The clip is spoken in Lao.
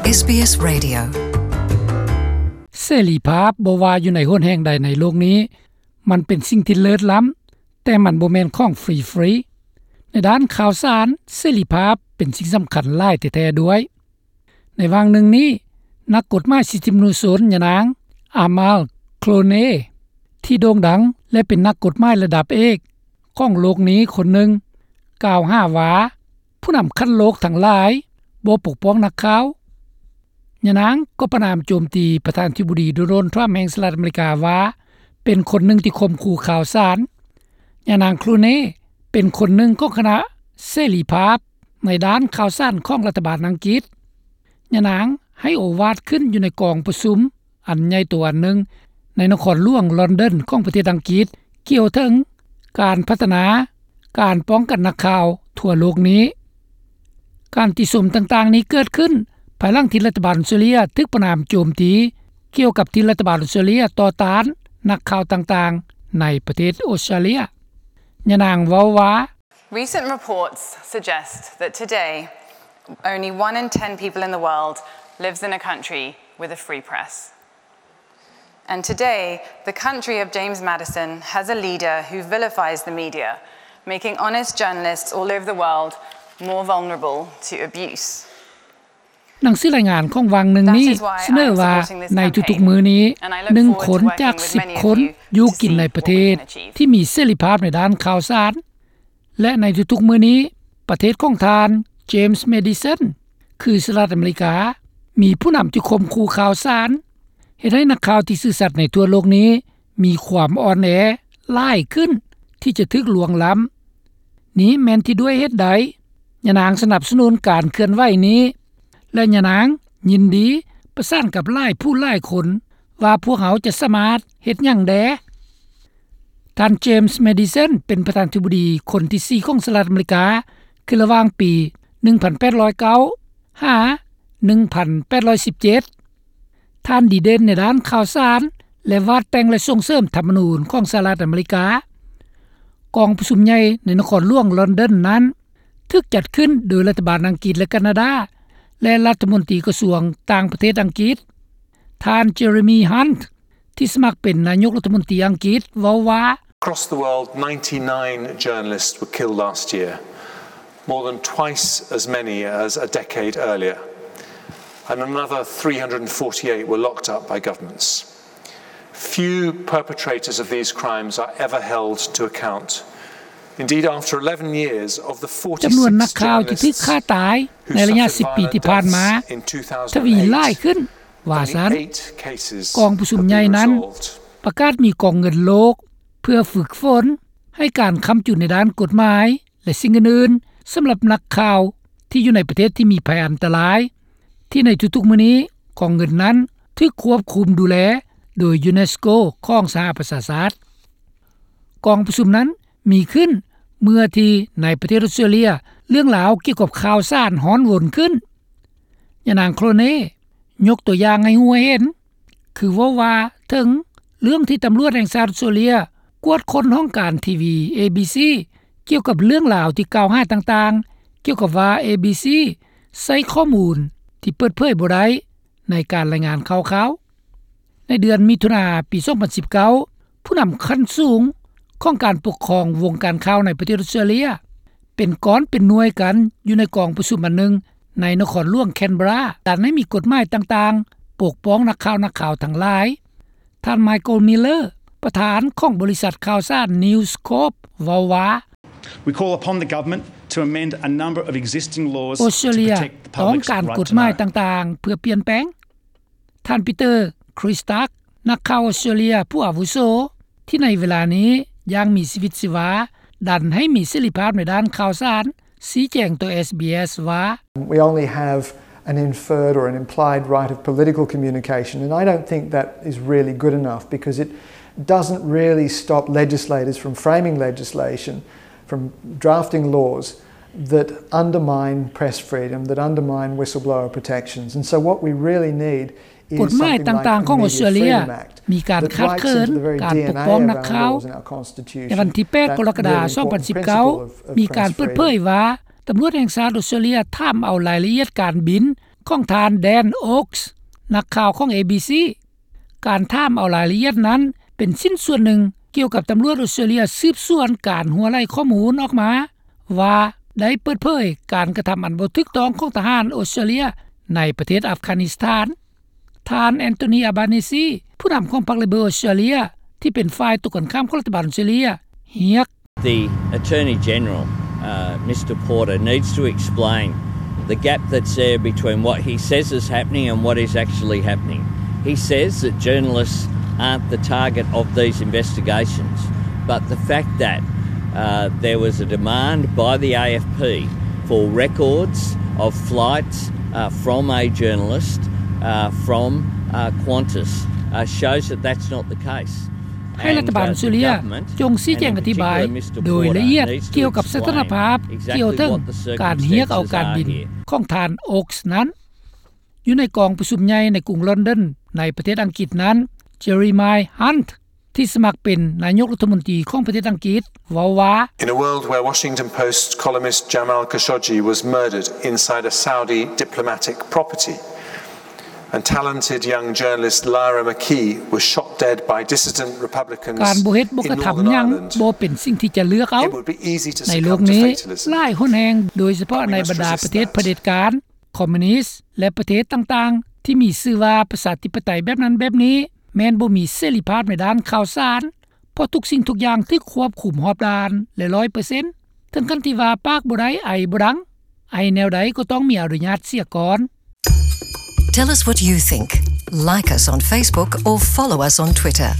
ເອສບີເອສ Radio. ເສລີພາບບໍ່ວ່າຢູ່ໃນຫົນແຫ່ງໃດໃນໂລກນີ້ ມັນເປັນສິ່ງທີ່ເລີດລ້ຳ, ແຕ່ມັນບໍ່ແມ່ນຂອງຟຣີໆ. ໃນດ້ານຂ່າວສານ, ເສລີພາບເປັນສິ່ງສຳຄັນຫຼາຍແທ້ໆດ້ວຍ. ໃນຫວ່າງໜຶ່ງນີ້, ນັກກົດໝາຍສິດທິມະນຸດຊົນ ຍານາງ ອາມາລ ໂຄລເນ ທີ່ໂດ່ງດັງ ແລະ ເປັນນັກກົດໝາຍລະດັບເອກຂອງໂລກນີ້ຄົນໜຶ່ງ ກ່າວຫາວ່າ ຜູ້ນຳຂັ້ນໂລກທັງຫຼາຍບໍ່ປົກປ້ອງນັກຂ່າວ. ຍານາງກໍປະນາມໂຈມຕີປະທານາທິບໍດີ ໂດນັລ ທຣຳ ແຫ່ງສະຫະລັດອາເມລິກາວ່າ ເປັນຄົນໜຶ່ງທີ່ຂົ່ມຂູ່ຂ່າວສານ. ຍານາງ ໂຄລເນ ເປັນຄົນໜຶ່ງຂອງຄະນະເສລີພາບໃນດ້ານຂ່າວສານຂອງລັດຖະບານອັງກິດ. ຍານາງໃຫ້ໂອວາດຂຶ້ນຢູ່ໃນກອງປະຊຸມອັນໃຫຍ່ໂຕອັນໜຶ່ງໃນນະຄອນຫຼວງລອນດອນຂອງປະເທດອັງກິດ ກ່ຽວເຖິງການພັດທະນາການປ້ອງກັນນັກຂ່າວທົ່ວໂລກນີ້. ການຕິຊົມຕ່າງໆນີ້ເກີດຂຶ້ນພາຍຫຼັງທີ່ລັດຖະບານອົດສະຕຣາເລຍຖືກປະນາມໂຈມຕີ ກ່ຽວກັບທີ່ລັດຖະບານອົດສະຕຣາເລຍຕໍ່ຕ້ານນັກຂ່າວຕ່າງໆໃນປະເທດອົດສະຕຣາເລຍ. ຍານາງເວົ້າວ່າ Recent reports suggest that today, only one in ten people in the world lives in a country with a free press. And today, the country of James Madison has a leader who vilifies the media, making honest journalists all over the world more vulnerable to abuse. ໜັງສືລາຍງານຂອງຫວ່າງໜຶ່ງນີ້ສະເໜີວ່າ ໃນທຸກໆມື້ນີ້ ໜຶ່ງຄົນຈາກສິບຄົນຢູ່ກິນໃນປະເທດທີ່ມີເສລີພາບໃນດ້ານຂ່າວສານ ແລະ ໃນທຸກໆມື້ນີ້ ປະເທດຂອງທ່ານ ເຈມສ໌ ແມດີສັນ ຄືສະຫະລັດອາເມລິກາ ມີຜູ້ນຳທີ່ຂົ່ມຂູ່ຂ່າວສານ ເຮັດໃຫ້ນັກຂ່າວທີ່ຊື່ສັດໃນທົ່ວໂລກນີ້ມີຄວາມອ່ອນແອຫຼາຍຂຶ້ນທີ່ຈະຖືກລ່ວງລ້ຳ. ນີ້ແມ່ນທີ່ດ້ວຍເຫດໃດຍານາງສະໜັບສະໜູນການເຄື່ອນໄຫວນີ້ ແລະ ຍານາງຍິນດີປະສານກັບຫຼາຍຜູ້ຫຼາຍຄົນວ່າພວກເຮົາຈະສາມາດເຮັດຫຍັງແດ່. ທ່ານ ເຈມສ໌ ແມດີສັນ ເປັນປະທານາທິບໍດີຄົນທີສີ່ຂອງສະຫະລັດອາເມລິກາ ຄືລະຫວ່າງປີໜຶ່ງພັນແປດຮ້ອຍເກົ້າ ຫາ ໜຶ່ງພັນແປດຮ້ອຍສິບເຈັດ. ທ່ານດີເດັ່ນໃນດ້ານຂ່າວສານ ແລະ ວາດແຕ່ງ ແລະ ສົ່ງເສີມທຳມະນູນຂອງສະຫະລັດອາເມລິກາ. ກອງປະຊຸມໃຫຍ່ໃນນະຄອນຫຼວງລອນດອນນັ້ນ ຖືກຈັດຂຶ້ນໂດຍລັດຖະບານອັງກິດ ແລະ ການາດາ ແລະ ລັດຖະມົນຕີກະຊວງຕ່າງປະເທດອັງກິດ ທ່ານ ເຈເຣມີ ຮັນ ທີ່ສະໝັກເປັນນາຍົກລັດຖະມົນຕີອັງກິດ ເວົ້າວ່າ Across the world, ninety-nine journalists were killed last year, more than twice as many as a decade earlier, and another three hundred and forty-eight were locked up by governments. Few perpetrators of these crimes are ever held to account. Indeed, after eleven years, of the forty-six journalists who suffered violent deaths in two thousand eight, ຈຳນວນນັກຂ່າວທີ່ຖືກຂ້າຕາຍໃນໄລຍະສິບປີທີ່ຜ່ານມາ ທະວີຫຼາຍຂຶ້ນວ່າຊັ້ນ. ກອງປະຊຸມໃຫຍ່ນັ້ນປະກາດມີກອງເງິນໂລກເພື່ອຝຶກຝົນໃຫ້ການຄ້ຳຈຸນໃນດ້ານກົດໝາຍ ແລະ ສິ່ງອື່ນໆ ສຳລັບນັກຂ່າວທີ່ຢູ່ໃນປະເທດທີ່ມີໄພອັນຕະລາຍ ທີ່ໃນທຸກໆມື້ນີ້ກອງເງິນນັ້ນຖືກຄວບຄຸມດູແລໂດຍ UNESCO ຂອງສະຫະປະຊາຊາດ. ກອງປະຊຸມນັ້ນມີຂຶ້ນເມື່ອທີ່ໃນປະເທດອົດສະຕຣາເລຍ ເລື່ອງລາວກ່ຽວກັບຂ່າວສານຮ້ອນວົນຂຶ້ນ. ຍານາງ ໂຄລເນ ຍົກຕົວຢ່າງໃຫ້ຮູ້ໃຫ້ເຫັນ ຄືເວົ້າວ່າເຖິງເລື່ອງທີ່ຕຳຫຼວດແຫ່ງຊາດອົດສະຕຣາເລຍກວດຄົ້ນຫ້ອງການທີວີ ເອບີຊີ ກ່ຽວກັບເລື່ອງລາວທີ່ກ່າວຫາຕ່າງໆ ກ່ຽວກັບວ່າ ເອບີຊີ ໃຊ້ຂໍ້ມູນທີ່ເປີດເຜີຍບໍ່ໄດ້ໃນການລາຍງານຂ່າວ. ໃນເດືອນມິຖຸນາປີສອງພັນສິບເກົ້າ ຜູ້ນຳຂັ້ນສູງຂອງການປົກຄອງວົງການຂ່າວໃນປະເທດອົດສະຕຣາເລຍ ເປັນກ້ອນເປັນໜ່ວຍກັນຢູ່ໃນກອງປະຊຸມອັນໜຶ່ງໃນນະຄອນຫຼວງແຄນເບຣາ ດັນໃຫ້ມີກົດໝາຍຕ່າງໆປົກປ້ອງນັກຂ່າວ ນັກຂ່າວທັງຫຼາຍ. ທ່ານ ໄມເຄິນ ມິລເລີ ປະທານຂອງບໍລິສັດຂ່າວສານ News Corp ເວົ້າວ່າ We call upon the government to amend a number of existing laws to protect the public's right to know. ອົດສະຕຣາເລຍຕ້ອງການກົດໝາຍຕ່າງໆເພື່ອປ່ຽນແປງ. ທ່ານ ປີເຕີ ຄຣິສຕັກ ນັກຂ່າວອົດສະຕຣາເລຍຜູ້ອາວຸໂສ ທີ່ໃນເວລານີ້ຍັງມີຊີວິດຊີວາ ດັນໃຫ້ມີເສລີພາບໃນດ້ານຂ່າວສານ ຊີ້ແຈງຕໍ່ ເອສບີເອສ ວ່າ We only have an inferred or an implied right of political communication, and I don't think that is really good enough, because it doesn't really stop legislators from framing legislation, from drafting laws that undermine press freedom, that undermine whistleblower protections. And so what we really need ກົດໝາຍຕ່າງໆຂອງອົດສະຕຣາເລຍມີການຂາດເຂີນການປົກປ້ອງນັກຂ່າວ. ໃນວັນທີແປດ ກໍລະກະດາ ສອງພັນສິບເກົ້າ ມີການເປີດເຜີຍວ່າ ຕຳຫຼວດແຫ່ງຊາດອົດສະຕຣາເລຍຖາມເອົາລາຍລະອຽດການບິນ ຂອງທ່ານ Dan Oakes ນັກຂ່າວຂອງ ເອບີຊີ ການຖາມເອົາລາຍລະອຽດນັ້ນ ເປັນຊິ້ນສ່ວນໜຶ່ງກ່ຽວກັບຕຳຫຼວດອອສເຕຣເລັຽສືບສວນການຮົ່ວໄຫຼຂໍ້ມູນອອກມາ ວ່າໄດ້ເປີດເຜີຍການກະທຳອັນບໍ່ຖືກຕ້ອງຂອງທະຫານອອສເຕຣເລັຽໃນປະເທດອັຟການິສຖານ. ທ່ານ Anthony Albanese ຜູ້ນຳຂອງພັກ Labor ອອສເຕຣເລັຽ ທີ່ເປັນຝ່າຍຕົງກັນຂ້າມຂອງລັດຖະບານອອສເຕຣເລັຽ ຮຽກ The Attorney General, uh, Mr Porter, needs to explain the gap that's there between what he says is happening and what is actually happening. He says that journalists aren't the target of these investigations, but the fact that, uh, there was a demand by the A F P for records of flights, uh, from a journalist, uh, from, uh, Qantas, uh, shows that that's not the case. ໃຫ້ລັດຖະບານອອສເຕຣເລັຽຈົ່ງຊີ້ແຈງອະທິບາຍໂດຍລະອຽດກ່ຽວກັບສະຖານະພາບກ່ຽວເຖິງການຮຽກເອົາການບິນຂອງທ່ານ Oakes ນັ້ນ. ຢູ່ໃນກອງປະຊຸມໃຫຍ່ໃນກຸງລອນດອນໃນປະເທດອັງກິດນັ້ນ Jeremy Hunt ທີ່ສະໝັກເປັນນາຍົກລັດຖະມົນຕີຂອງປະເທດອັງກິດ ເວົ້າວ່າ In a world where Washington Post columnist Jamal Khashoggi was murdered inside a Saudi diplomatic property and talented young journalist Lyra McKee was shot dead by dissident Republicans ການບໍ່ເຮັດບໍ່ກະທຳຫຍັງບໍ່ເປັນສິ່ງທີ່ຈະເລືອກເອົາ. ໃນໂລກນີ້ຫຼາຍຮຸນແຮງ ໂດຍສະເພາະໃນບັນດາປະເທດຜະເດັດການ, ຄອມມິວນິດ ແລະ ປະເທດຕ່າງໆທີ່ມີຊື່ວ່າປະຊາທິປະໄຕແບບນັ້ນແບບນີ້ ແມ່ນບໍ່ມີເສລີພາບໃນດ້ານຂ່າວສານ ເພາະທຸກສິ່ງທຸກຢ່າງຖືກຄວບຄຸມຮອບດ້ານ ແລະ ຮ້ອຍເປີເຊັນ ເຖິງຂັ້ນທີ່ວ່າປາກບໍ່ໄດ້ ໄອບໍ່ດັງ ໄອແນວໃດກໍຕ້ອງມີອະນຸຍາດເສຍກ່ອນ. Tell us what you think. Like us on Facebook or follow us on Twitter.